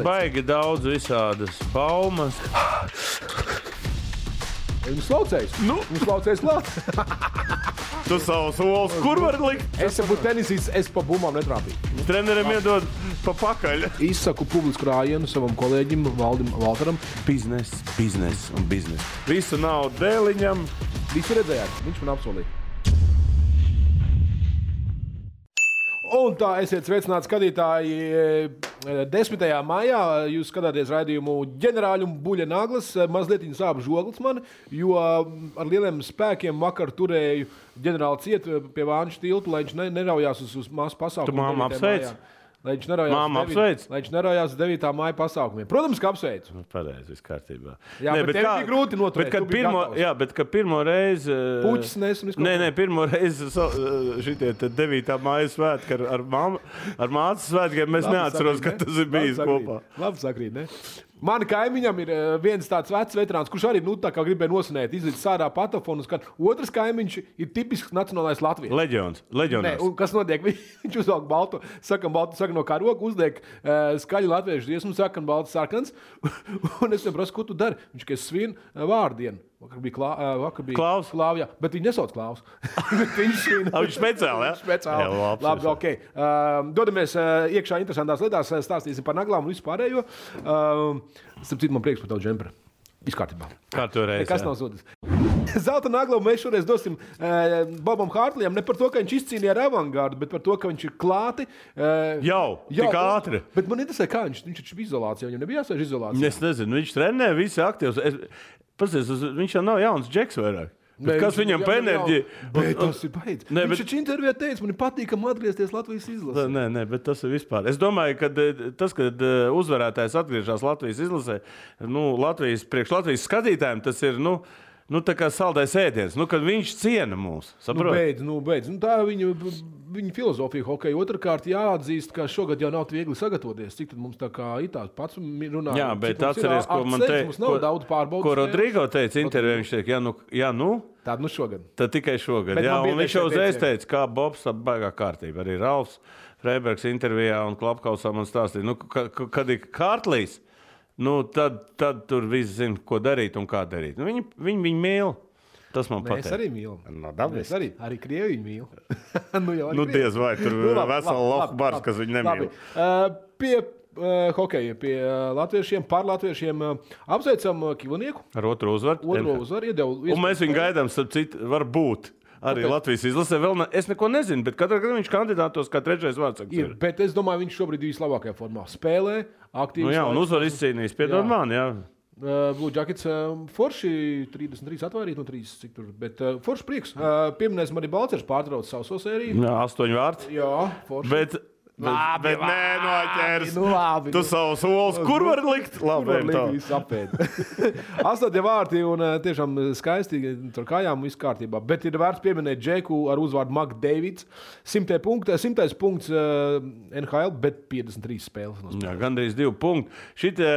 Baigi daudz visādas baumas. Viņš slaucējis. Viņš slaucējis klāt. Tu savu solis, kur var likt? Es būtu tenisīts, es pa bumbām netrāpīju. Treneriem iedod pa pakaļ. Izsaku publisku rājienu savam kolēģim Valdim Valtaram. Biznes un biznes. Visu naudu dēliņam. Visu redzējāt, viņš man apsolīja. Un tā, esiet sveicināti skatītāji. 10. maijā jūs skatāties raidījumu Ģenerāļu un Buļļa Naglas. Mazliet sāp žoglis man, jo ar lieliem spēkiem vakar turēju ģenerāli ciet pie Vāņu tiltu, lai viņš neraujās uz masu pasākumu. Tu māmu apsveic? Lai viņš neraujās 9. māja pasākumiem. Protams, ka apsveicu. Pareizi, viss kārtībā. Jā, bet tev bija grūti noturēt. Bet kad pirmo reizi... Puķis nes un visko. Nē, pirmo reizi šitie 9. māja svētki ar mācas svētkiem mēs neatceros, ka tas ir bijis kopā. Labi sakrīt, ne? Mani kaimiņam ir viens tāds vecs veterāns, kurš arī tā kā gribēja nosinēt, izlīdz sārā patofonu. Otrs kaimiņš ir tipisks nacionālais Latvijas. Leģions. Nē, un kas notiek? Viņš uzvelk baltu, saka no karoga, uzliek skaļu latviešu dziesmu, saka baltu sarkans. Un es viņam prasu, ko tu dari? Viņš, ka es svinu vārdienu. Vakar bija Klaus. Klāvs, bet viņi nesauc Klaus. Viņš speciāli, jā? Speciāli. Labi, ok. Dodamies iekšā interesantās lietās, stāstīsim par naglām un visu pārējo. Starp citu, man prieks par tavu džemperi. Viss kārtībā. Kā tu reiz, kas nav zudis. Zelta naglu mēs šoreiz dosim Bobam Hārtlijam ne par to, ka viņš izcīnīja ar avangārdu, bet par to, ka viņš ir klāti. Tik ātri. Bet man interesē, kā viņš ir izolācijā. Viņam nebija jāsēž izolācijā. Es nezinu, viņš trenē, visi aktīvs. Viņš jau nav jauns džeks vairāk. Bet kas viņam pa enerģiju? Tas ir baidz. Viņš taču intervijā teica, man ir patīkami atgriezties Latvijas izlasē. Nē, bet tas ir vispār. Es domāju, ka kad uzvarētājs atgriežas Latvijas izlasē, priekš Latvijas skatītājiem tas ir, tā kā saldais ēdiens. Kad viņš ciena mūs. Saprot? Beidz. Tā viņa filozofija hokeja. Otrkārt jāatzīst, ka šogad jau nav viegli sagatavoties. Cik tad mums tā kā itāls pats runā? Jā, bet atceries, ko man teica, ko Rodrigo teica intervijā. Viņš teica, tāda šogad. Tad tikai šogad. Jā, un viņš jau uzreiz teica, kā Bobs, tā baigā kārtība. Arī Ralfs Freibergs intervijā un Klapkausā man stāstīja, kad ir Hārtlijs, tad tur viss zina, ko darīt un kā darīt. Viņi mīl. Tas man patīk. Es arī mīlu. Es arī Krievi mīlu. Diez vai tur vesela lofu bars, kas viņu nemīl. Pie hokeja, pie latviešiem, par latviešiem apsveicam Kivonieku. Ar otru uzvaru. Un mēs viņu gaidām, starp citu, varbūt. Arī Latvijas izlasē vēl es neko nezinu, bet katrā gadā viņš kandidātos kā trešais vārds. Bet es domāju, viņš šobrīd ir vislabākajā formā. Spēlē, aktīvi. Un uzvar izcīnījis. Piedod man, jā. Blue Jackets forši 33 atvairīt no 30, cik tur, bet forši prieks. Pieminēsim arī Balcers pārtrauc savu sēriju. 8 vārds. Jā, forši. Bet nē, noķers. Tu savu solis, kur var likt? Labi, viss apēd. 8 vārti un tiešām skaisti tur kājām viss kārtībā. Bet ir vērts pieminēt Džeku ar uzvārdu McDavids. 100 punkts NHL, bet 53 spēles. Jā, gandrīz 2 punkti. Šitie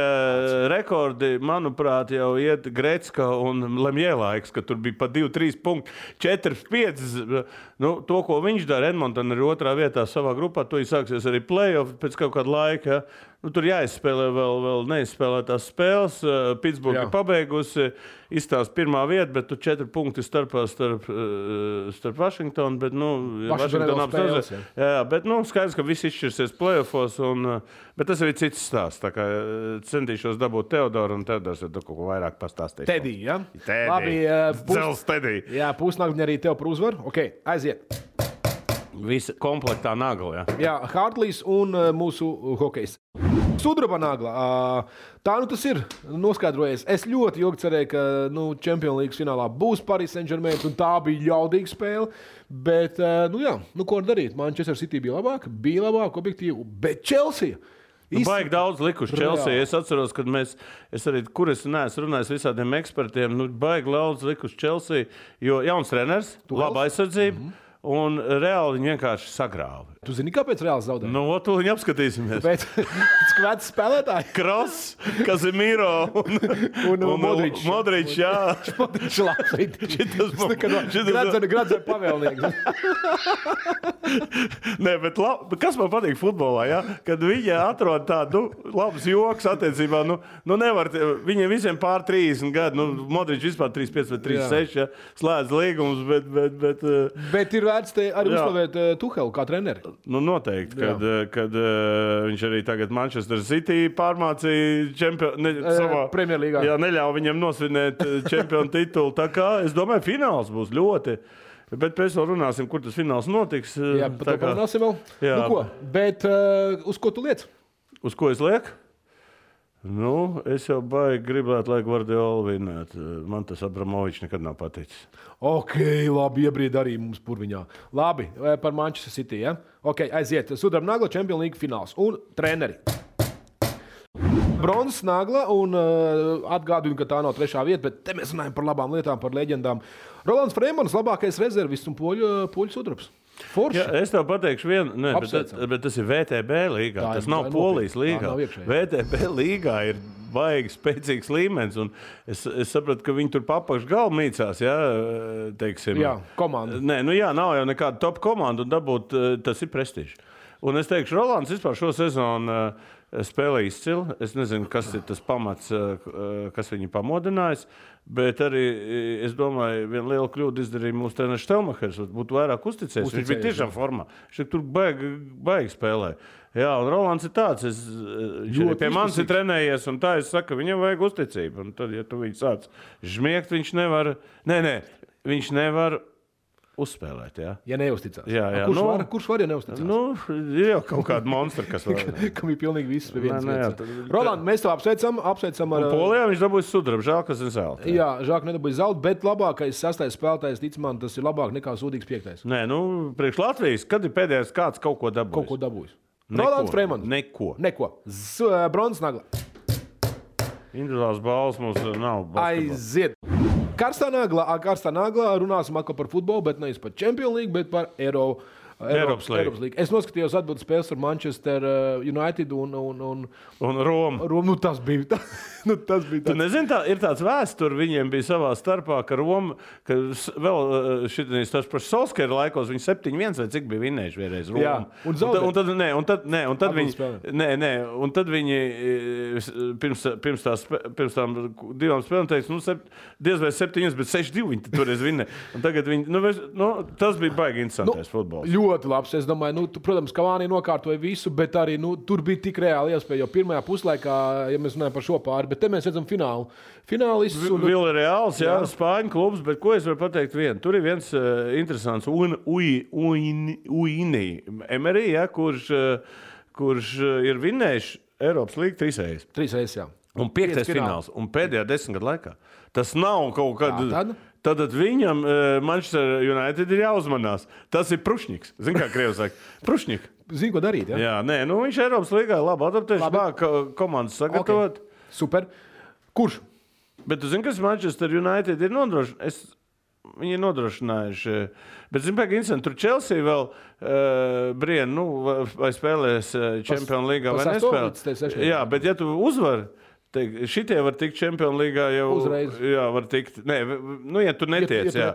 rekordi, manuprāt, jau iet Grecka un Lemjē laiks, ka tur bija pa 2-3 punkti. 4-5. To, ko viņš dara, Edmonton ir otrā vietā savā grupā, to sāksies arī play-off pēc kaut kāda laika. Tur jāizspēlē vēl neizspēlētās spēles. Pittsburgh ir pabeigusi, izstāsta pirmā vieta, bet tur 4 punkti starp Washingtonu. Bet, Washington apstāsies. Jā, bet skaidrs, ka viss izšķirsies play-offos. Bet tas ir cits stāsts. Tā kā centīšos dabūt Teodoru, un Teodors ir kaut ko vairāk pastāstīt. Tedī, ja? Labi, Dzels Tedī. Jā, pusnagļi arī tev par uzvaru. Ok, aiziet. Visa komplektā nagla, jā. Hārtlijs un mūsu hokejs. Sudraba nagla. Tā tas ir noskaidrojies. Es ļoti ilgi cerēju, ka Champions League finālā būs Paris Saint-Germain, un tā bija jaudīga spēle. Bet, ko darīt? Manchester City bija labāk, objektīvi, bet Chelsea. Baigi daudz likuši Chelsea. Es atceros, kad es arī, kur es neesmu runājis visādiem ekspertiem, baigi daudz likuši Chelsea, jo jauns treneris, laba aizsardzība. un reāli viņi vienkārši sagrāva. Tu zini, kāpēc reāli zaudēja? Nu, to viņi apskatīsimies. Pēc skvētas spēlētāji. Kross, Kazimiro un Modrič, jā. Modrič labs. Gradzē pavēlnieks. Nē, bet kas man patīk futbolā, ja? Kad viņi atrod tādu labus joks attiecībā, nevar, viņiem visiem pār 30 gadu, Modrič vispār 35 vai 36, ja? Slēdz līgumus, Bet ir vērts te arī uzslavēt Tuhelu kā treneri. Nu, noteikti, kad viņš arī tagad Manchester City pārmācīja savā Premjerlīgā. Jā, neļauj viņam nosvinēt čempionu titulu. Tā kā, es domāju, fināls būs ļoti. Bet pēc vēl runāsim, kur tas fināls notiks. Jā, par to runāsim vēl. Jā. Nu ko, bet uz ko tu liec? Uz ko es lieku? Nu, es jau baigi gribētu, lai Guardiola vinnētu. Man tas Abramovičs nekad nav paticis. Ok, labi, iebrīd arī mums purviņā. Labi, par Manchester City, ja? Ok, aiziet. Sudraba nagla, Champions League fināls. Un treneri. Bronzas nagla, un atgādinu, ka tā nav 3. vieta, bet te mēs runājam par labām lietām, par leģendām. Rolands Freimans, labākais rezervists un poļu sudrabs. Ja, es tev pateikšu vienu, bet tas ir VTB līgā. Tas nav Polijas līgā. VTB līgā ir baigi spēcīgs līmenis. Es sapratu, ka viņi tur papakš galvu mīcās. Ja, teiksim, jā, komanda. Nē, nav jau nekāda top komanda un dabūt, tas ir prestiži. Un es teikšu, Rolands vispār šo sezonu spēlē izcili. Es nezinu, kas ir tas pamats, kas viņu pamodinājis. Bet arī, es domāju, viena liela kļūda izdarīja mūsu treneris Štelmachers. Būtu vairāk uzticējies. Viņš bija tiešām formā. Viņš tur baigi spēlē. Jā, un Rolands ir tāds. Viņš pie manis ir trenējies, un tā es saku, viņam vajag uzticību. Un tad, ja tu viņu sāc žmiegt, viņš nevar... Nē, viņš nevar uzspēlēt, jā. Ja neuzticās. Jā. Kurš var, ja neuzticās? Ir jau kaut kāda monstri, kas var. Kam ir pilnīgi viss pie vienas vietas. Roland, mēs tev apsveicam ar... Polijā viņš dabūja sudrabu, žēl, kas ir zelta. Jā, žēl, ka nedabūja zelta, bet labākais 6. spēlētājs, tic man, tas ir labāk nekā sūdīgs 5. Nē, priekš Latvijas, kad ir pēdējais kāds kaut ko dabūjis? Kaut ko dabūjis. Rolands Freimans. Neko. Bronzas nagla. Individuāls balvas mums nav. Aiziet. Karstā nagla runāsim atkal par futbolu, bet nevis par Champions League, bet par Eiropas līgu. Es noskatījos atbildes spēles ar Manchester United un Romu. Nu, tas bija Tu nezini, ir tāds vēsture, viņiem bija savā starpā, ka Roma, ka vēl šitais tas par Solskjaera laikos, viņi 7-1 vai cik bija vinnējuši vienreiz Romu. Jā, un tad viņi pirms tām 2 spēlēm teica, diez vai 7, bet 6-2 viņi toreiz vinnē. Un tagad viņi, tas bija baigi interesantais futbols. Ļoti labs. Es domāju, protams, Cavani nokārtoja visu, bet arī tur bija tik reāli iespēja. Jo pirmajā puslaikā, ja mēs runājam par šo pāri, bet te mēs redzam finālu. Finālists un Villarreals, jā, Spāņu klubs, bet ko es varu pateikt vienu? Tur ir viens interesants Uini Emery, ja, kurš ir vinnējis Eiropas līgu 3 reizes. 3 reizes, jā. Un 5. fināls. Un pēdējā 10 gadu laikā. Tas nav kaut kad... Tad viņam Manchester United ir jāuzmanās. Tas ir Prušņiks. Zini, kā krievi saka? Prušņik. Zini, ko darīt, ja? Jā, nē, viņš Eiropas līgā labi adaptējuši, māk komandas sagatavot. Okay. Super. Kurš? Bet tu zini, kas Manchester United ir nodrošinājuši? Viņi ir nodrošinājuši. Bet, zini, pēc incidenta, tur Chelsea vēl brien, vai spēlēs Champions Līgā vai nespēlēs. Jā, bet ja tu uzvari, šitie var tikt Champions Līgā jau uzreiz. Jā, var tikt. Nē, ja tu netiec, jā.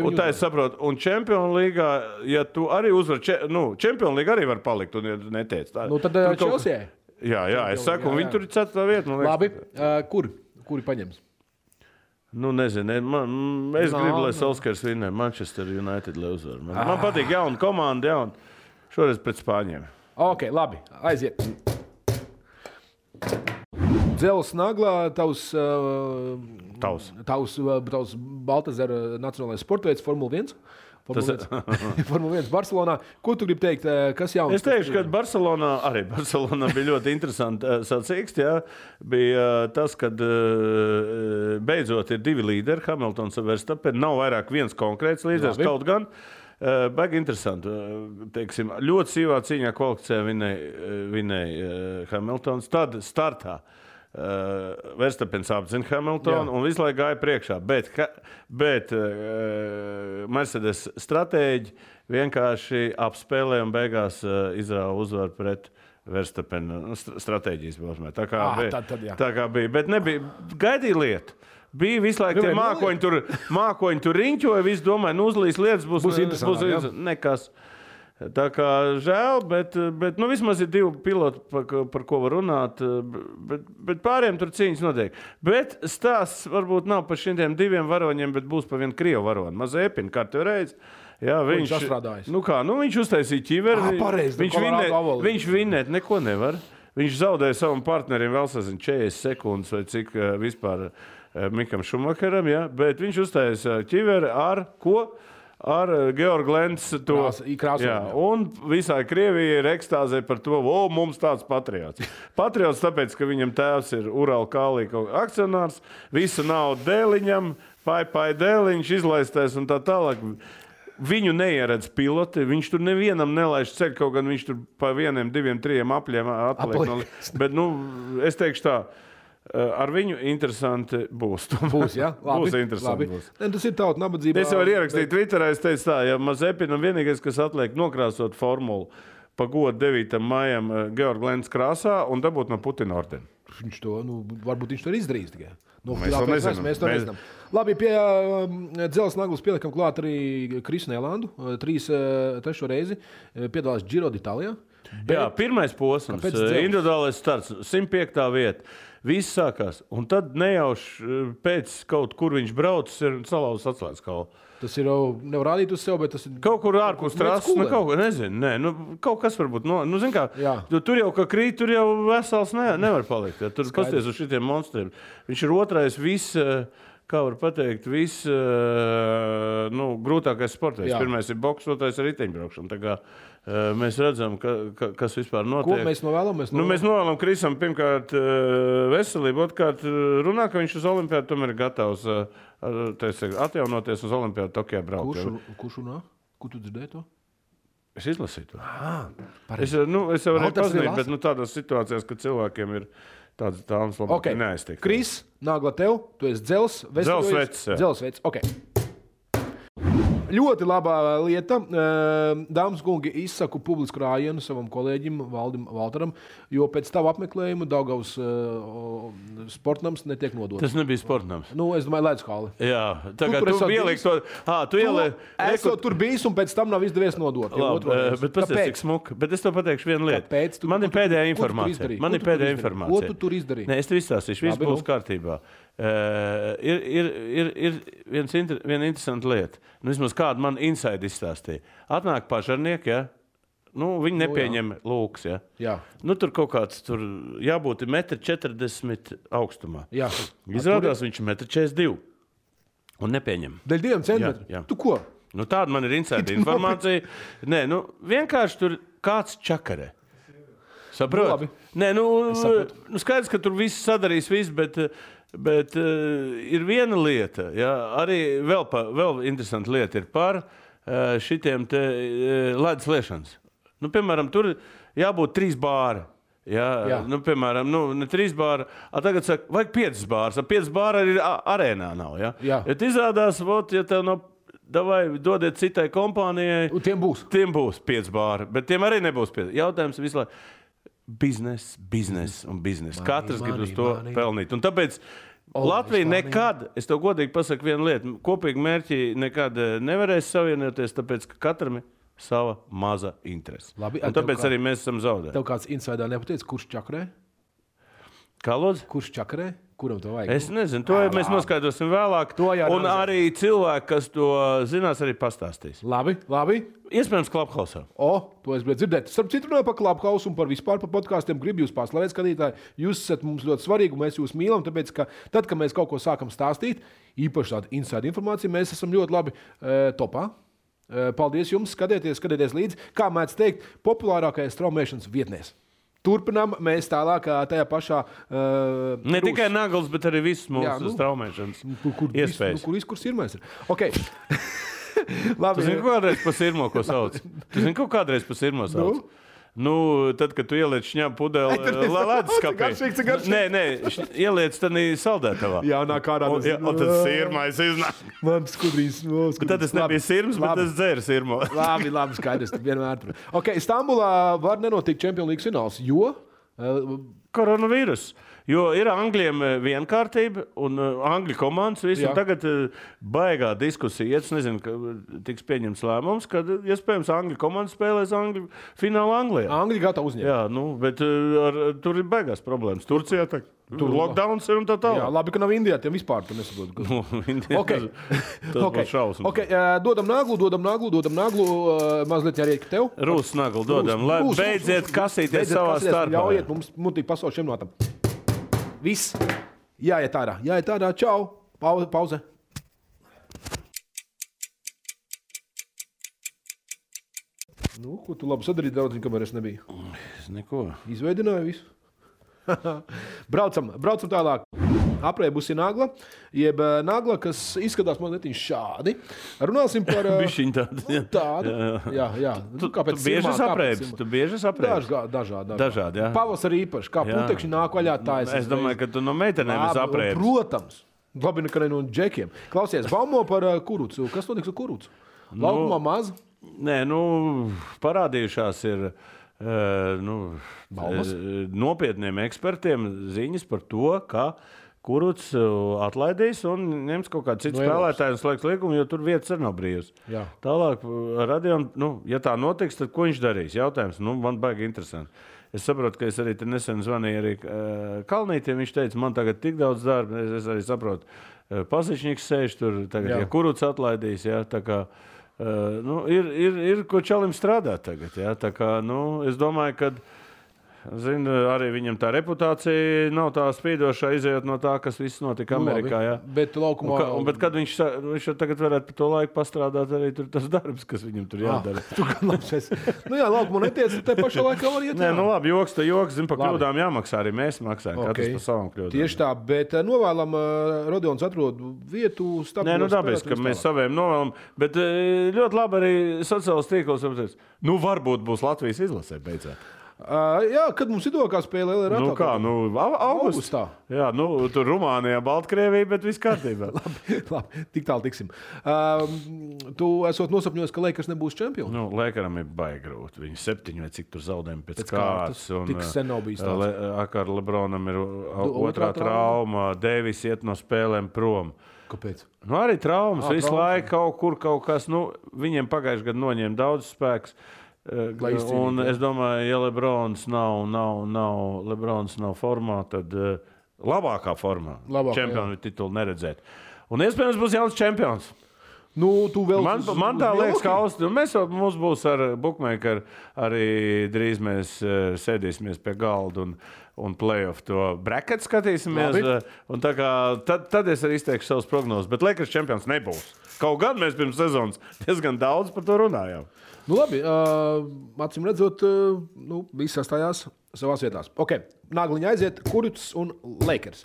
Un tā es saprotu. Un Champions Līgā, ja tu arī uzvar, Champions Līgā arī var palikt un ja netiec. Tā, tad Chelsea. Jā, es saku, un viņi tur ir 4. vieta. Labi, kuri paņems? Nezinu. Es gribu, lai Solskjaers vinnē Manchester United, lai uzvar. Man patīk jauna komanda, šoreiz pret Spāņiem. Ok, labi, aiziet. Dzelzs naglā, tavs Baltazara nacionālais sportveids Formula 1. Formula 1 Barcelonā. Ko tu gribi teikt? Kas jauns? Es teikšu, ka Barcelonā bija ļoti interesanti sacīkst. Ja? Bija tas, kad beidzot ir 2 līderi, Hamiltons un Verstappen. Nav vairāk viens konkrēts līderis, kaut gan. Baigi interesanti. Teiksim, ļoti sīvā cīņā kvalificē vinēja Hamiltons. Tad startā Verstapens apzina Hamiltonu un visu laiku gāja priekšā. Bet Mercedes stratēģi vienkārši apspēlēja un beigās izrāva uzvaru pret Verstapena stratēģijas balsmē. Tā kā bija. Bet nebija gaidīja lietu. Bija visu laiku tie mākoņi tur riņķoja, visi domāja, uzlīs lietas, būs interesanti. Nekas. Tā kā žēl, bet vismaz ir 2 piloti, par ko var runāt, bet pārējiem tur cīņas notiek. Bet stāsts varbūt nav par šiem 2 varoņiem, bet būs par vienu krievu varoni. Mazepin, kārtējo reizi. Jā, viņš atstrādājis. Viņš uztaisīja ķiveri. Viņš vinēt neko nevar. Viņš zaudēja savam partnerim vēl 40 sekundes vai cik vispār Mikam Šumacheram, bet viņš uztaisīja ķiveri ar ko? Ar Georgu Lencu un visai Krievijai ir ekstāzē par to, mums tāds patriots. Patriots tāpēc, ka viņam tēvs ir Ural Kālī akcionārs, visu naudu dēliņam, pai dēliņš izlaistais un tā tālāk. Viņu neieredz piloti, viņš tur nevienam nelaiž ceļu, kaut gan viņš tur pa 1, 2, 3 apļiem atliek. Bet, es teikšu tā, ar viņu interesanti būs. Būs, jā? Labi, būs interesanti. Labi. Tas ir tauta nabadzībā. Es jau varu ierakstīt Twitterā, es teicu tā, ja Mazepinam vienīgais, kas atliek nokrāsot formulu pa godu 9. maijam Georgu Lencu krāsā un dabūt no Putina ordeni. Viņš to, varbūt viņš to ir izdarījis tikai. Mēs to nezinām. Labi, pie dzelzs naglas pielikam klāt arī Krisu Nelandu. 3. reizi piedalās Giro d'Italijā. Jā, pirmais posms, individuālais starts, 105. vieta. Viss sākās. Un tad nejauši pēc kaut kur viņš braucis ir salauzis atslēgas kaulu. Tas ir jau nevar rādīt uz sev, bet tas ir... Kaut kur ārpus trases, kaut ko, nezinu. Kaut kas varbūt, zin kā, tur jau, ka krīt, tur jau vesels nevar palikt. Ja. Tur pasties uz šitiem monstriem. Viņš ir otrais kā var pateikt, grūtākais sportais. Pirmais ir boks, otrais ir riteņbraukšana. Tā kā mēs redzam, kas vispār notiek. Ko mēs novēlam? Mēs novēlam Krisam pirmkārt veselību, otrkārt runā, ka viņš uz olimpiādu tomēr ir gatavs atjaunoties uz olimpiādu Tokijā braukt. Kurš runā? Kur tu dzirdēji to? Es izlasīju to. Es jau varēju pazinīt, bet tādās situācijās, kad cilvēkiem ir tādas tāmas labāk neaiztiek. Kris, nāgla tev, tu esi Dzelsvecs. Ļoti labā lieta. Dāmas kungi, izsaku publisku rājienu savam kolēģim Valdim Valtaram, jo pēc tavu apmeklējumu Daugavas sportnams netiek nodots. Tas nebija sportnams. Es domāju, Ledskāli. Jā, tagad tu ieliksi to... Tu esot tur bijis un pēc tam nav izdevies nodot. Labi, bet pasties, cik smuka. Bet es to pateikšu vienu lietu. Man ir pēdējā informācija. Ko tu tur izdarīji? Nē, es tev izstāstīšu. Viss būs kārtībā. Ir viena interesanta lieta. Vismaz kādu man inside izstāstīja. Atnāk pažarnieki, ja? Viņi nepieņem lūks, ja? Jā. Tur kaut kāds, jābūt 1,40 m augstumā. Jā. Izrādās viņš ir 1,42 m un nepieņem. Dēļ 2 centimetru? Jā. Tu ko? Tāda man ir inside informācija. Nē, vienkārši tur kāds čakarē. Saprot? Nē, skaidrs, ka tur viss sadarīs viss, bet ir viena lieta, arī vēl interesanta lieta ir par šitiem te ledus liešanas. Piemēram, tur jābūt 3 bāri. Piemēram, ne 3 bāri, tagad saka, vajag 5 bārs. 5 bāri arī arēnā nav. Ja izrādās, ja tev nav, dodiet citai kompānijai. Tiem būs 5 bāri, bet tiem arī nebūs 5. Jautājums visu laiku. Biznes. Katrs grib uz to pelnīt. Un tāpēc Latvija nekad, es tev godīgi pasaku vienu lietu, kopīgi mērķi nekad nevarēs savienoties, tāpēc, ka katram ir sava maza interese. Un tāpēc arī mēs esam zaudēti. Tev kāds insaidā nepateica, kurš čakarē? Kā lūdzu? Kurš čakarē? Kuram to vajag? Es nezinu, to mēs noskaidrosim vēlāk. Un arī cilvēki, kas to zinās, arī pastāstīs. Labi. Iespējams, Clubhouse. To es gribēju dzirdēt. Starp citu, runāju par Clubhouse un par vispār par podkāstiem. Gribu jūs paslavēt, skatītāji. Jūs esat mums ļoti svarīgi, un mēs jūs mīlam, tāpēc, ka tad, kad mēs kaut ko sākam stāstīt, īpaši tādu inside informāciju, mēs esam ļoti labi topā. Paldies jums, skatieties līdzi. Kā mēdz teikt, populārākais straumēšanas vietnēs. Turpinām mēs tālāk tajā pašā... Ne tikai nagls, bet arī viss mūsu straumēšanas iespējas. Kur sirmais ir? Ok. Labi. Tu zini, kādreiz pa sirmo, ko sauc? Tu zini, ko kādreiz pa sirmo sauc? Nu, tad, kad tu ieliec šņāpu pudeli leduskapī. Nē, ieliec tad saldētavā. Jā, nā kārā. Un tad sirmais iznāk. Man skudrīs. Tad tas nebija sirms, bet tas dzēra sirmo. Labi, skaidrs, vienmēr. Ok, Stambulā var nenotikt Champions League fināls, jo? Koronavīrus. Jo ir Angļiem vienkārtība un Angļu komandas visu. Tagad baigā diskusija. Es nezinu, ka tiks pieņemts lēmums, kad iespējams Angļu komanda spēlēs Angļu finālu Anglijā. Angļi gatavi uzņemt. Jā, bet tur ir baigās problēmas. Turcijā tur lockdowns ir un tā tālāk. Jā, labi, ka nav Indijā, tiem vispār tu nesaproti. Tas būs šausmas. Dodam naglu, mazliet jāriek tev. Rūs naglu dodam, lai beidziet kasīties savā starpā. Ļaujiet mums mutīgi pasauli šiem notam. Viss. Jāiet ārā. Čau. Pauze. Nu, ko tu labi sadarīji, draudziņ, kamēr es nebiju? Neko. Izveidināju visu. Braucam tālāk. Aprēbusi nagla, jeb nagla, kas izskatās mazliet šādi. Runāsim par... Bišķiņ tādu. Jā. Tu bieži aprēbis? Dažādi, jā. Pavasarī īpaši, kā putekšņi nāk vaļā tā. Es domāju, ka tu no meitenēm esi aprēbis. Protams. Labi, nekā no džekiem. Klausies, baumo par kurucu. Kas notiks ar kurucu? Laukumā maz? Nē, parādījušās ir... nopietniem ekspertiem ziņas par to, ka Kurucs atlaidīs un ņems kaut kādu citu spēlētāju un slēgs līgumu, jo tur vietas arī nav brīvas. Tālāk, Radion, ja tā notiks, tad ko viņš darīs? Jautājums, man baigi interesanti. Es saprotu, ka es arī te nesen zvanīju arī Kalnītiem, viņš teica, man tagad tik daudz darba, es arī saprotu, Pasičņiks sēž tur, tagad, ja Kurucs atlaidīs, tā kā, ir ko čalim strādāt tagad, tā kā, es domāju, ka arī viņam tā reputācija nav tā spīdošā, izējot no tā, kas viss notika Amerikā. Jā. Bet laukumā... Bet kad viņš tagad varētu par to laiku pastrādāt, arī tur tas darbs, kas viņam tur jādara. Laukumā netiec, te pašā laikā var iet. Nē, labi, joks, pa kļūdām jāmaksā, arī mēs maksājam, katrs par savām kļūdām. Tieši tā, bet novēlam, Rodions atrod vietu stabilu. Nē, dabiski, ka mēs saviem novēlam, bet ļoti labi arī sociālos tīklos, varbūt būs Latvijas izlasē beidzot. Jā, kad mums idokā spēlē augustā. Jā, tur Rumānijā, Baltkrievija, bet viss kārtībā. labi, tik tālu tiksim. Tu esot nosapņojis, ka Lakers nebūs čempioni? Lakeram ir baigi grūti. Viņi 7 vai cik tur zaudējumi pēc kārtas. Tik sen nav bijis tāds. Ar Lebronam ir otrā trauma, Deivis iet no spēlēm prom. Kāpēc? Arī traumas, visu laiku kaut kas, viņiem pagājuši gadu noņēma daudz spēks. Un es domāju, ja Lebrons nav formā, tad labākā formā čempionu titulu neredzēt. Un iespējams būs jauns čempions. Man tā liekas, ka mums būs ar bookmakeru arī drīz mēs sēdīsimies pie galda un play-off to bracket skatīsimies. Un tad es arī izteikšu savus prognozes, bet Lakers čempions nebūs. Kaut gan mēs pirms sezonas diezgan daudz par to runājām. Labi, acīm redzot, viss sastājās savās vietās. Ok, nagliņa aiziet, Kurucs un Lakers.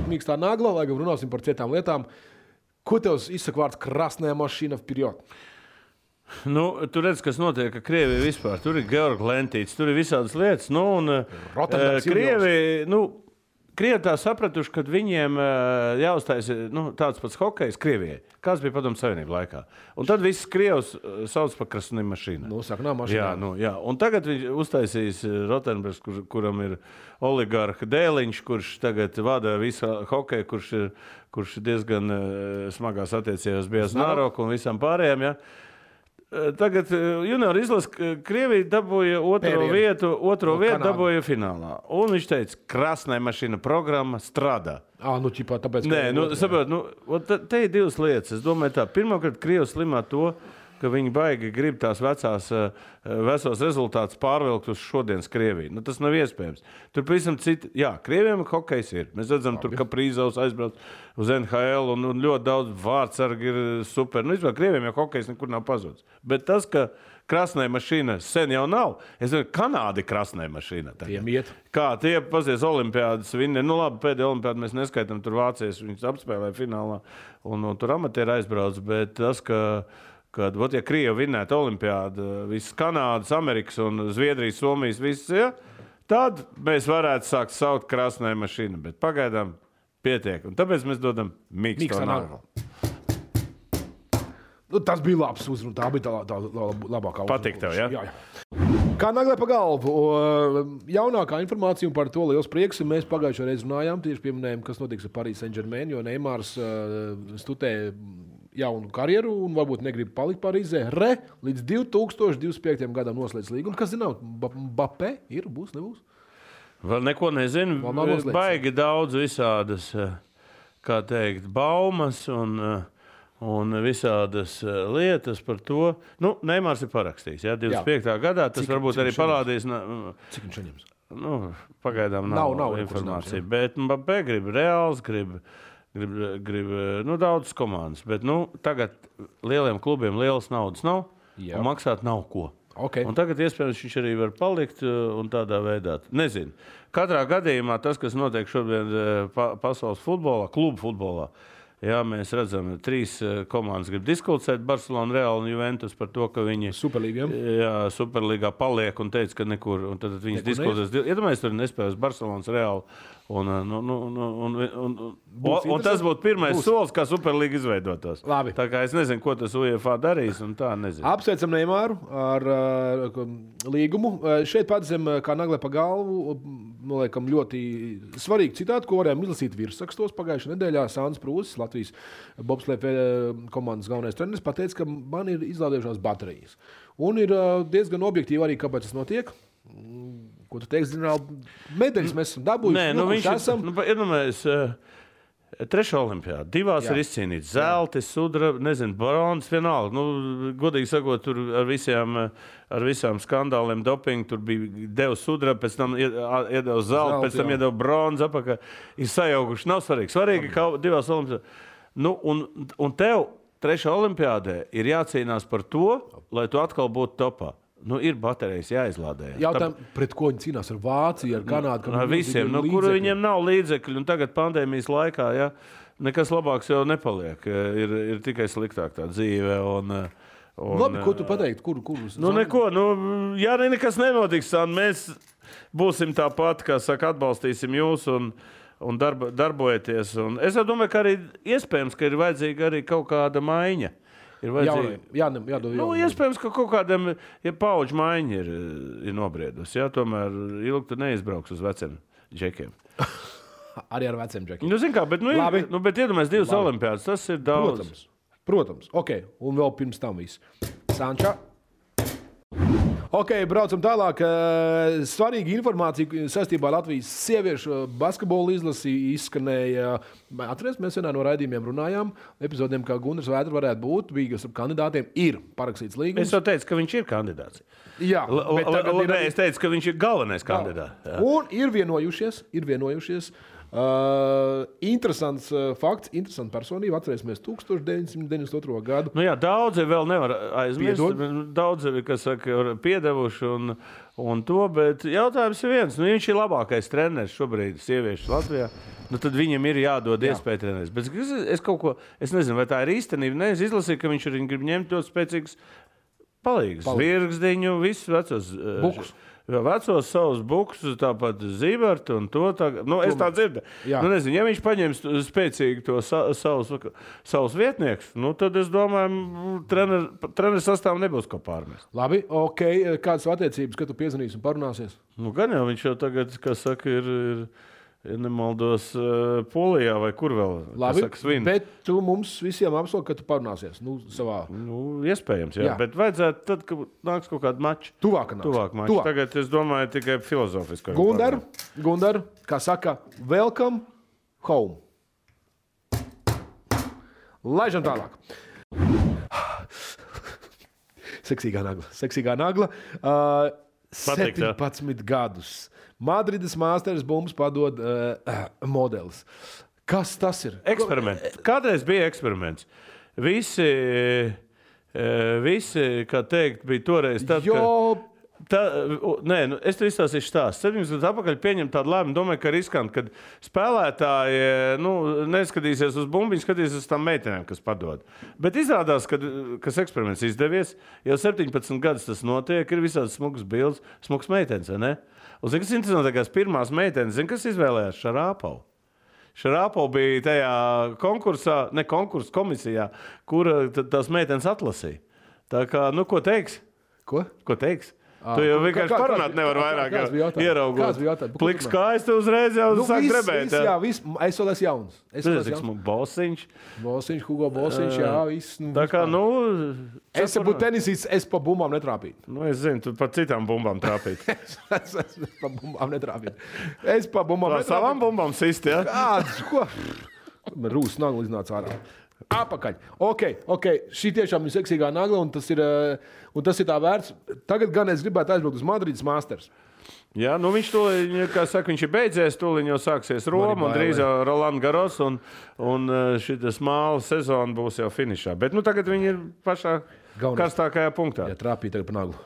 Mīkstā nagla, lai gan runāsim par citām lietām. Ko tev izsaka vārds krasnajā mašīna vpirjot? Tu redz, kas notiek, ka Krievija vispār. Tur ir Georg Lentīts, tur ir visādas lietas. Krievi tā sapratuši, ka viņiem jāuztais tāds pats hokejs Krievijai. Kāds bija Padomu Savienību laikā. Un tad viss Krievs sauc par krasnīm mašīnām. Jā. Un tagad viņš uztaisīs Rotenbergs, kuram ir oligarha dēliņš, kurš tagad vada visu hokeju, kurš diezgan smagās attiecībās bija Znaroku un visam pārējiem. Ja? Tagad junior izlase Krievija dabūja otro vietu dabūja finālā. Un viņš teica, krasnai mašīna programma strādā. Tāpēc, te ir divas lietas. Es domāju tā, pirmkārt, Krievi slimā to, ka viņi baigi grib tās vesos rezultātus pārvilkt uz šodienas Krieviju. Tas nav iespējams. Tur pavisam citi, Krieviem hokejs ir. Mēs redzam, tur Kaprīzovs aizbrauc uz NHL un ļoti daudz vārdsargi ir super. Vispār Krieviem jau hokejs nekur nav pazudis. Bet tas, ka krasnai mašīna sen jau nav, es domāju, Kanāda ir krasnai mašīna. Kā tie pazies olimpiādas viņi, labi, pēdējā olimpiāda mēs neskaitam, tur vācies, viņus apspēlēja finālā un tur amatieri aizbrauc, bet tas, ka kad, ja Krieva vinnētu olimpiādu, visas Kanādas, Amerikas un Zviedrijas, Somijas, visas, ja, tad mēs varētu sākt saukt krasnē mašīnu, bet pagaidām pietiek. Un tāpēc mēs dodam mīksto naglu. Tas bija labs uzruna, tā bija tā labākā uzruna. Patīk tev, ja? Jā. Kā naglē pa galvu. Jaunākā informācija par to liels prieks. Mēs pagājušajā reizē runājām, tieši pieminējām, kas notiks ar Paris Saint-Germain, jo Neimārs studē jaunu karjeru un varbūt negrib palikt Parīzē. Līdz 2025. gadam noslēdz līgumu. Kas zināt, Mbappé ir, būs, nebūs? Vēl neko nezinu. Baigi daudz visādas, kā teikt, baumas un visādas lietas par to. Neimārs ir parakstījis, 25. gadā. Tas varbūt arī parādīs. Cik viņš saņems? Pagaidām nav informācija. Bet Mbappé grib Reāls, grib daudzas komandas. Bet tagad lieliem klubiem lielas naudas nav un maksāt nav ko. Okay. Un tagad iespējams viņš arī var palikt un tādā veidā. Nezinu. Katrā gadījumā tas, kas notiek šobrīd pasaules futbolā, klubu futbolā, jā, mēs redzam, 3 komandas grib diskutēt, Barcelona, Real un Juventus par to, ka viņi Superlīgā paliek un teica, ka nekur, un tad viņas diskutēs. Iedomājies, tur nespējas Barcelonas, Real un tas būtu pirmais solis, kā Superlīga izveidotos. Labi. Tā kā es nezinu, ko tas UEFA darīs, un tā nezinu. Apsveicam Neimāru ar līgumu. Šeit pats zem kā naglē pa galvu, noliekam ļoti svarīgi citāti, ko varējām izlasīt virsrakstos pagājušajā nedēļā. Sāns Prūsis, Latvijas bobsleja komandas galvenais treneris, pateica, ka man ir izlādējušās baterijas. Un ir diezgan objektīvi arī, kāpēc tas notiek. Ko tu teiksi, ģenerāli, medaļas mēs esam dabūjuši? Viņš esam. Iedomājies, 3. olimpiāda, 2 ir izcīnīts. Zelti, sudraba, nezinu, bronzas, vienalga. Godīgi sakot, tur ar visām skandāliem dopingu, tur bija devu sudraba, pēc tam iedeva zelti, pēc tam iedeva bronzu apakā. Ir sajaukuši, nav svarīgi. Svarīgi, ka 2 olimpiāda. Un tev 3. olimpiādē ir jācīnās par to, lai tu atkal būtu topā. Ir baterijas jāizlādē. Jautājumu, pret ko viņi cīnās ar Vāciju, ar Kanādu? Ar visiem, kuru viņiem nav līdzekļu. Un tagad pandēmijas laikā, nekas labāks jau nepaliek. Ir tikai sliktāk tā dzīve. Labi, ko tu pateikti? Neko. Ja nekas nenotiks, mēs būsim tāpat, kā saka, atbalstīsim jūs un darbojieties. Un es domāju, ka arī iespējams, ka ir vajadzīga arī kaut kāda maiņa. Iespējams, ka kaut kādam paudžu maiņa ir nobriedusi. Tomēr ilgi tu neizbrauks uz veciem džekiem. Arī ar veciem džekiem. Zin kā, bet iedomājies 2 olimpiādas, tas ir daudz. Protams. Ok, un vēl pirms tam viss. Sanča. Ok, braucam tālāk. Svarīga informācija saistībā ar Latvijas sieviešu basketbolu izlasi izskanēja. Atceries, mēs vienā no raidījumiem runājām. Epizodiem, kā Gunārs Vētra varētu būt, bija ar kandidātiem, ir parakstīts līgums. Es jau teicu, ka viņš ir kandidāts. Jā, es teicu, ka viņš ir galvenais kandidāts. Un ir vienojušies. Interesants fakts, interesanta personība. Atcerēsimies 1992. gadu. Daudzi vēl nevar aizmirst. Daudzi, kas saka, piedevuši un to, bet jautājums ir viens. Viņš ir labākais treneris šobrīd sieviešu Latvijā. Tad viņam ir jādod iespēja trenēties. Bet es nezinu, vai tā ir īstenība. Es izlasīju, ka viņš arī grib ņemt ļoti spēcīgus palīgus. Virgzdiņu, visus vecos bukus. Vecos savus bukus, tāpat Zībertu un to. Es tā dzirdu. Nezinu, ja viņš paņems spēcīgi to savus vietniekus, tad es domāju, treneris sastāvam nebūs ko pārmest. Labi, ok. Kādas attiecības, kad tu piezvanīsi un parunāsies? Gan jau viņš jau tagad, kas saka, ir ja nemaldos Polijā vai kur vēl. Labi, bet tu mums visiem apsoli, ka tu parunāsies savā. Iespējams, jā. Bet vajadzētu tad, kad nāks kaut kāda mača. Tuvāk mača. Tagad es domāju tikai filozofiski. Gundar, kā saka, welcome home. Laižam tālāk. Seksīgā nagla. 17 gadus. Madrides Masters bumbas padod modelis. Kas tas ir? Eksperiments. Kādreiz bija eksperiments. Visi kā teikt, bija toreiz tad, Nē, es tev izstāstīšu stāstu. 7 gadus atpakaļ pieņem tādu lēmumu, domāju, ka riskanti, kad spēlētāji neskatīsies uz bumbiņu, skatīsies uz tām meitenēm, kas padod. Bet izrādās, kas eksperiments izdevies, jau 17 gadus tas notiek, ir visādi smugas bildes, smugas meitenes, vai ne? Un zini, kas interesantākās pirmās meitenes, zini, kas izvēlējās Šarāpovu? Šarāpova bija tajā komisijā, kura tās meitenes atlasīja. Tā kā, ko teiks? Ko teiks? Tu jau vienkārši parunāt nevar vairāk ieraugot. Pliks kājas tu uzreiz jau sāk drebēt. Jā, viss. Es vēl esmu jauns. Bosiņš, Hugo Bosiņš, jā, viss. Tā kā, Es būtu tenisīts, es pa bumbām netrāpītu. Es zinu, tu par citām bumbām trāpītu. Es pa bumbām netrāpītu. Es pa bumbām netrāpītu. Savām bumbām sisti, jā? Kāds, ko? Rūs nagla iznāca ārā. Apakaļ. Ok. Šī tiešām ir seksīgā nagla, un tas ir tā vērts. Tagad gan es gribētu aizbraukt uz Madrides Masters. Jā, viņš to, kā saka, viņš ir beidzies, tūlīt jau sāksies Roma, un drīz jau Roland Garros, un šitas māla sezona būs jau finišā. Bet tagad viņi ir pašā karstākajā punktā. Jā, trāpīja tagad pa naglu.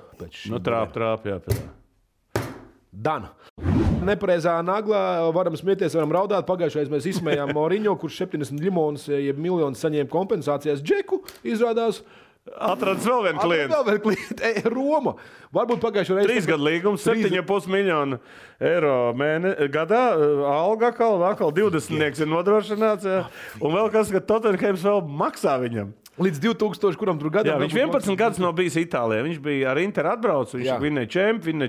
Trāp, jā. Dan. Nepareizā naglā varam smieties, varam raudāt. Pagājušajā mēs izsmējām Mourinho, kurš 70 miljonus, jeb miljonus saņēma kompensācijās. Džeku izrādās. Atradis vēl vienu klientu. Roma. Varbūt pagājušajā reizē. 3 gadu līgums, 7,5 miljonu eiro gadā. Alga atkal 20 ir nodrošināts. Jā. Un vēl kas, ka Tottenhams vēl maksā viņam. Līdz 2000, kuram tur gadā. Jā, viņš 11 gadus nav bijis Itālijā. Viņš bija ar Inter atbraucis, viņš vinnēja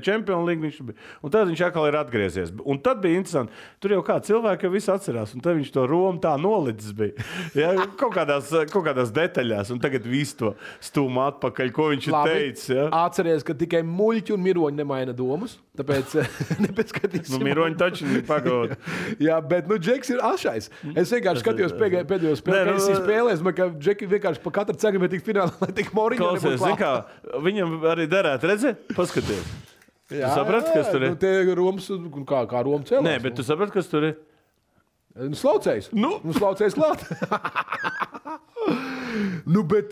Champions League. Un tad viņš atkal ir atgriezies. Un tad bija interesanti. Tur jau kā cilvēki jau visu atcerās. Un tad viņš to Romu tā nolicis bija. Jā, kaut kādās detaļās. Un tagad visu to stūma atpakaļ, ko viņš ir teicis. Jā. Atceries, ka tikai muļķi un miroņi nemaina domas. Tāpēc nepieskatīsim. Miroņi taču ir pagod. Jā, bet Džeks ir ašais. Es vienkārši skatījos pēdējo spēli, ka es spēlēju, ka Džeki vienkārši pa katru cegam ir tik finālā, lai tik Mourinho nebūtu klāt. Viņam arī derētu, redzēt? Paskaties. Tu saprati, kas tur ir? Te Romas, kā Roma cēlās. Nē, bet tu saprati, kas tur ir? Slaucējs. Slaucējs klāt. Bet...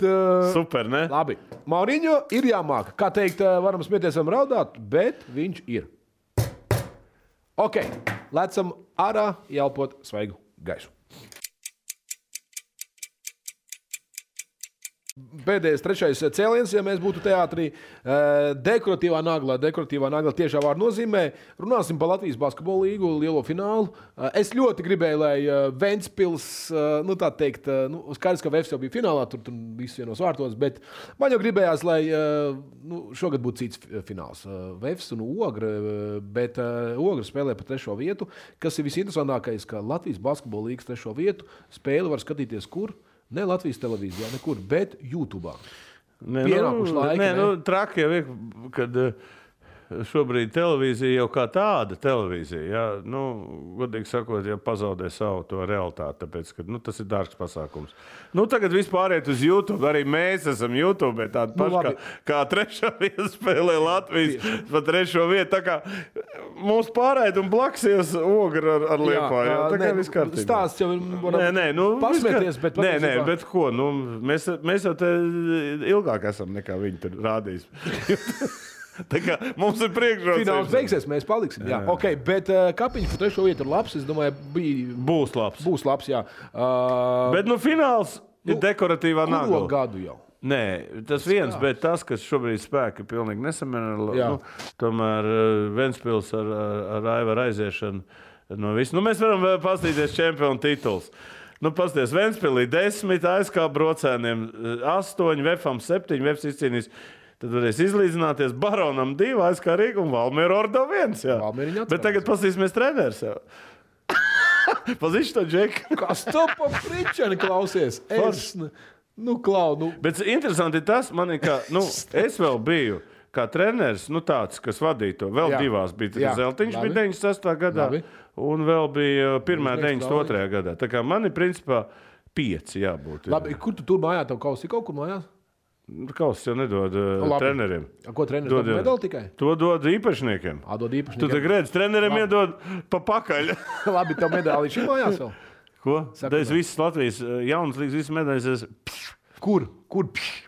Super, ne? Labi. Mourinho ir jāmāk. Kā teikt, varam smieties, varam raudāt, bet viņš ir. Ok. Lecam ārā, ielpot svaigu gaisu. Pēdējais, trešais cēliens, ja mēs būtu teātrī, dekoratīvā nagla tiešā vārda nozīmē. Runāsim par Latvijas basketbola līgu, lielo finālu. Es ļoti gribēju, lai Ventspils, tā teikt, skaidrs, ka Vefs jau bija finālā, tur viss vienos vārtos, bet man jau gribējās, lai šogad būtu cits fināls. Vefs un Ogra, bet Ogra spēlē par 3. vietu, kas ir visinteresantākais, ka Latvijas basketbola līgas 3. vietu spēli var skatīties kur? Ne Latvijas televīzijā, nekur, bet YouTube. Pienākuši laiki. Traki jau ir, kad šobrīd televīzija jau kā tāda televīzija, jā, godīgi sakot, jau pazaudē savu to realitāti, tāpēc, ka tas ir dārgs pasākums. Tagad vispār iet uz YouTube, arī mēs esam YouTube, tādi paši kā 3. vieta spēlē Latvijas pa 3. vietu, tā kā mums pārējot un blaksies Ogra ar Liepāju. Tā kā viss kārtībā. Stāsts jau varam pasmieties, bet Nē, bet ko? Mēs jau te ilgāk esam nekā viņi tur rādījis. Tā kā mums ir priekšrocības. Fināls beigsies, mēs paliksim. Jā. Ok, bet Kapiņš par 3. vietu ir labs. Es domāju, būs labs. Būs labs, jā. Bet fināls ir dekoratīvā nagla. Kuru gadu jau? Nē, tas viens, bet tas, kas šobrīd spēka, ir pilnīgi nesamierināts. Tomēr Ventspils ar Aivaru aiziešanu no visu. Mēs varam pastīties čempionu tituls. Pasties, Ventspilī 10, ASK Brocēniem 8, Vefam 7, Vefs izcīnīs. Tad varēs izlīdzināties Baronam 2, ASK Rīga un Valmiera Ordo 1. Bet tagad pasīsimies treneris jau. Pazīšu to Džeku. Kas to pa pričani klausies? Bet interesanti ir tas, es vēl biju kā treneris, tāds, kas vadīja to. Vēl divās bija Zeltiņš, bija 96. gadā, un vēl bija pirmā 92. gadā. Tā kā man ir principā 5 jābūt. Labi, kur tu tur mājā, tev kausi kaut kur mājās? Kausis jau nedod treneriem. Ko treneris dod medaļu tikai? To dod īpašniekiem. Dod īpašniekiem. Tu te redzi, treneriem iedod pa pakaļ. Labi, tev medaļi šī mājās vēl? Ko? Es visas Latvijas jaunas līgas, visas medaļas. Kur?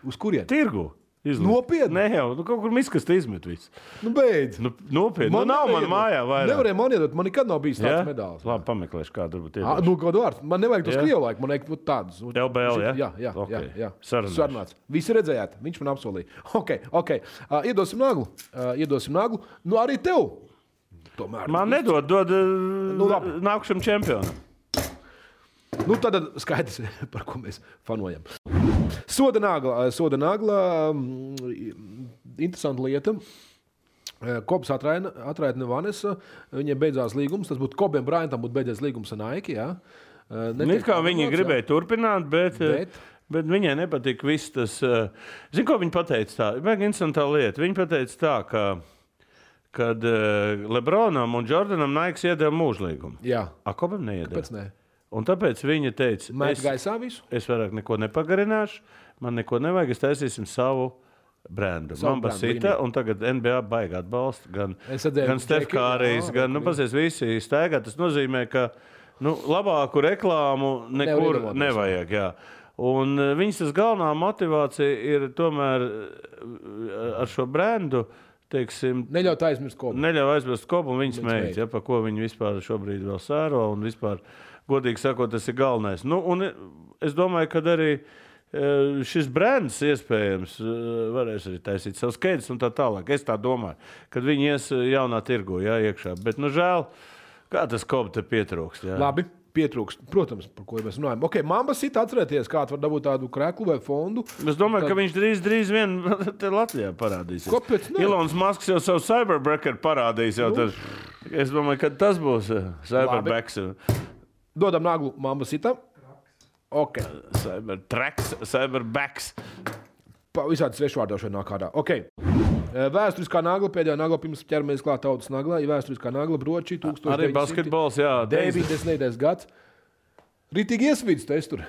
Uz kurien? Tirgu. Nopietni? Nē, jau, kaut kur miskasta izmet visu. Beidz. Nopietni. Nav man mājā vairāk. Nevarēja man iedot, man nekad nav bijis tāds medāls. Labi, pameklēšu kādu varbūt iedošu. Kādu vārdu. Man nevajag tos krievu laiku, man vajag tādus. LBL, jā? Jā. Sarunāts. Visi redzējāt, viņš man apsolīja. Ok. Iedosim naglu. Nu, arī tev. Tomēr. Man nedod nākušam čempionam. Tad skaidrs, par ko mēs fanojam. Soda nagla. Interesanta lieta. Kobs atraitne Vanessa. Viņiem beidzās līgums. Tas būtu Kobiem Bryantam būtu beidzies līgums ar Nike. Jā. Kā viņi gribēja turpināt, bet viņai nepatika viss tas. Zini, ko viņi pateica tā? Vajag interesantā lieta. Viņi pateica tā, kad Lebronam un Jordanam Nike iedeva mūžlīgumu. Jā. Kobam neiedeva. Kāpēc ne? Un tāpēc viņa teica, es vairāk neko nepagarināšu, man neko nevajag, es taisīsim savu brendu. Man basita, un tagad NBA baigi atbalsta, gan Steph Currys, gan, visi staigā. Tas nozīmē, ka labāku reklāmu nekur nevajag. Jā. Un viņas tas galvenā motivācija ir tomēr ar šo brendu, teiksim, neļaut aizmirst Kobu, un viņas mēģi, pa ko viņi vispār šobrīd vēl sēro, un vispār, godīgi sakot, tas ir galvenais. Un es domāju, ka arī šis brands iespējams varēs arī taisīt savus skaidrs un tā tālāk. Es tā domāju, kad viņi ies jaunā tirgu, iekšā. Bet, žēl, kā tas Kobu te pietrūkst. Jā. Labi. Pietrūkst, protams, par ko mēs runājam. Ok, Mamba Sita atcerēties, kāds var dabūt tādu kreklu vai fondu. Es domāju, ka viņš drīz vien te Latvijā parādīsies. Kāpēc ne? Elons Musks jau savu Cyberbreaker parādīs. Es domāju, ka tas būs Cyberbacks. Dodam naglu Mamba Sita. Ok. Cyberbacks. Visādi svešvārdošana nāk kādā. Ok. Vēsturiskā nagla, pēdējā nagla, pirms ķeramies klāt tautas naglā, ir vēsturiskā nagla Broči 1990. Arī basketbols, jā. 90. gads. Ritīgi iesvīdus tu es tur.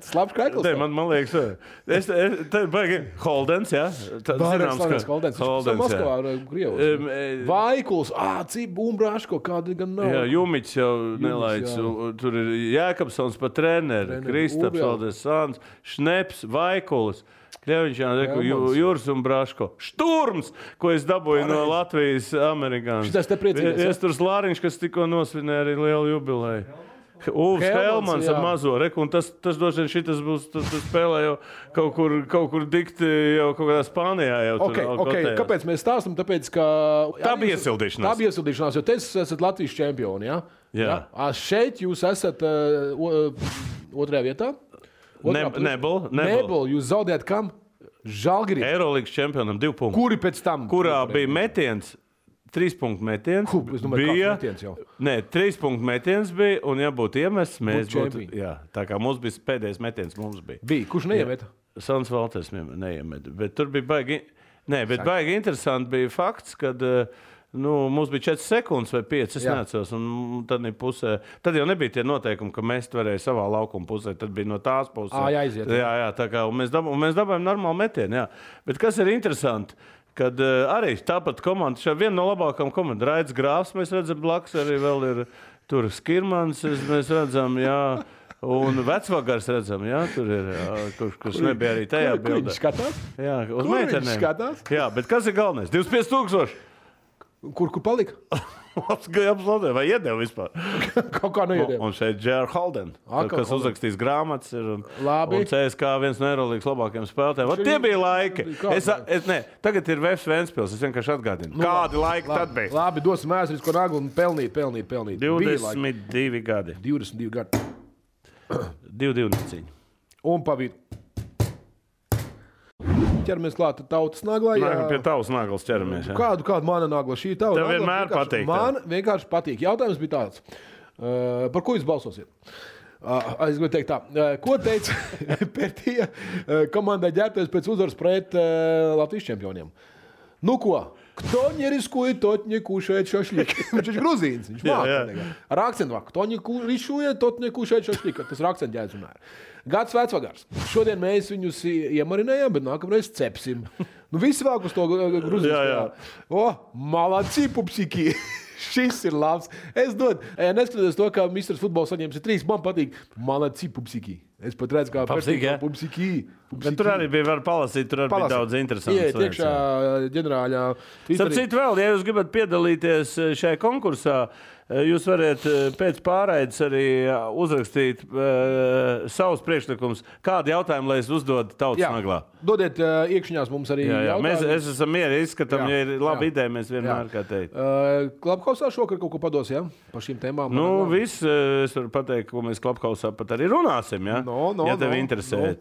Slabs krekls. Man liekas, tā baigi Holdens, jā. Zināms, ka Holdens. Moskavā, Krievos. Vaikuls, Bumbraško, kāda gan nav. Jā, Jumiķis jau nelaic. Tur ir Jēkabsons pa treneri, Kristaps, Aldes Sāns, Šneps, Vaikulis. Kļeviņš, Jūras un Braško. Šturms, ko es dabūju no Latvijas amerikāņu. Šitas te priecīgais. Iesturs Lāriņš, kas tikko nosvinēja arī lielu jubileju. Uvs Helmans ar mazo reku, un tas droši vien šitas būs, tas spēlē jau kaut kur dikti jau kaut kādā Spānijā. Ok, kāpēc mēs stāstam? Tāpēc, ka... Tā bija iesildīšanās. Jo te esat Latvijas čempioni, jā? Jā. Šeit jūs esat otrajā vietā? Nebel. Jūs zaudējat kam? Žalgirī. Eirolīgas čempionam 2 punkti. Kuri pēc tam? Kurā bija metiens, 3 punktu metiens. Es domāju, kāds metiens jau. Nē, 3 punktu metiens bija, un ja būtu iemests, mēs būtu... Jā, tā kā mums bija pēdējais metiens, mums bija. Kurš neiemeta? Sans Valters neiemeta. Bet tur bija baigi... Nē, bet baigi interesanti bija fakts, kad... mums bija 4 sekundes vai 5, es neatceros, un tad jau nebija tie noteikumi, ka mēs varējām savā laukuma pusē, tad bija no tās puses. Jāiziet. Jā, tā kā, un mēs dabājām normālu metienu, jā. Bet kas ir interesanti, kad arī tāpat komanda, šā viena no labākām komandām, Raids Grāfs, mēs redzam, blakus arī vēl ir tur Skirmans, mēs redzam, jā, un Vecvagars redzam, jā, tur ir, kurš nebija arī tajā bildē. Kur viņš skatās? Jā, uz meitenēm. Jā, bet kas ir galvenais? 25 000. Kur palika? Vai iedeva vispār? Kaut kā neiedeva. Un šeit J.R. Holden, kas uzrakstīs grāmatas, un CSK viens no Eirolīgas labākajiem spēlētājiem. Tie bija laiki. Tagad ir Vefs Ventspils, es vienkārši atgādinu. Kādi laiki tad bija? Labi, dosim vēsturisko naglu un pelnīt. 22 gadi. 22 gadi. 2 neciņi. Un pavīd. Ķeramies klāt tautas naglā. Pie tavas naglas ķeramies. Kādu mana nagla? Šī tava tev vienmēr patīk. Man vienkārši patīk. Jautājums bija tāds. Par ko jūs balsosiet? Es gribēju teikt tā. Ko teica Pertija komandai ģērbties pēc uzvaras pret Latvijas čempioniem? Nu ko? Кто не рискует, тот не кушает шашлик. Viņš ir gruzīns. Viņš māca. Ar akcentu vārdu. Кто не рискует, тот не кушает шашлик. Tas ir akcentu ģērbs. Gads Vecvagars. Šodien mēs viņus iemarinējām, bet nākamreiz cepsim. Visi vēl uz to gruzīns. Malaci, pupsiki. Šis ir labs. Es neskatoties to, ka Mr. Futbols saņems 3, man patīk. Malaci pupsiki. Es pat redzu, kā pupsiki. Bet tur arī bija var palasīt, tur arī bija daudz interesants lietas. Iet iekšā ģenerāļā. Starp citu vēl, ja jūs gribat piedalīties šajā konkursā, jūs varat pēc pārraides arī uzrakstīt savus priekšlikumus. Kādu jautājumu, lai es uzdodu tautas naglā? Dodiet iekšņās mums arī jautājumus. Mēs esam mieri, izskatām, ja ir laba ideja, mēs vienmēr kā teikt. Klubhausā šokar kaut ko pados, ja? Par šīm tēmām. Viss, es varu pateikt, ko mēs Klubhausā pat arī runāsim, ja? Ja tev interesē.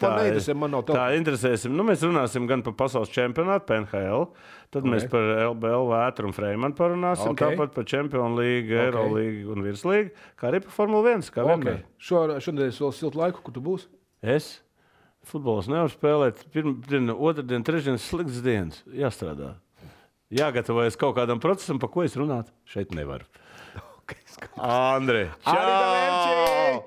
Tā interesēsim. Mēs runāsim gan par pasaules čempionātu, PNHL, tad mēs par LBL, Vētru un Freimanu parunāsim, tāpat par Champions League, Eurolīgu un Virslīgu, kā arī par Formula 1, kā vienmēr. Šodien es vēl siltu laiku, kur tu būsi? Es? Futbols nevar spēlēt. Pirmdiena, otrdien, trešdien slikts dienas. Jāstrādā. Jāgatavojas kaut kādam procesam, par ko es runāt. Šeit nevaru. Andri, čau!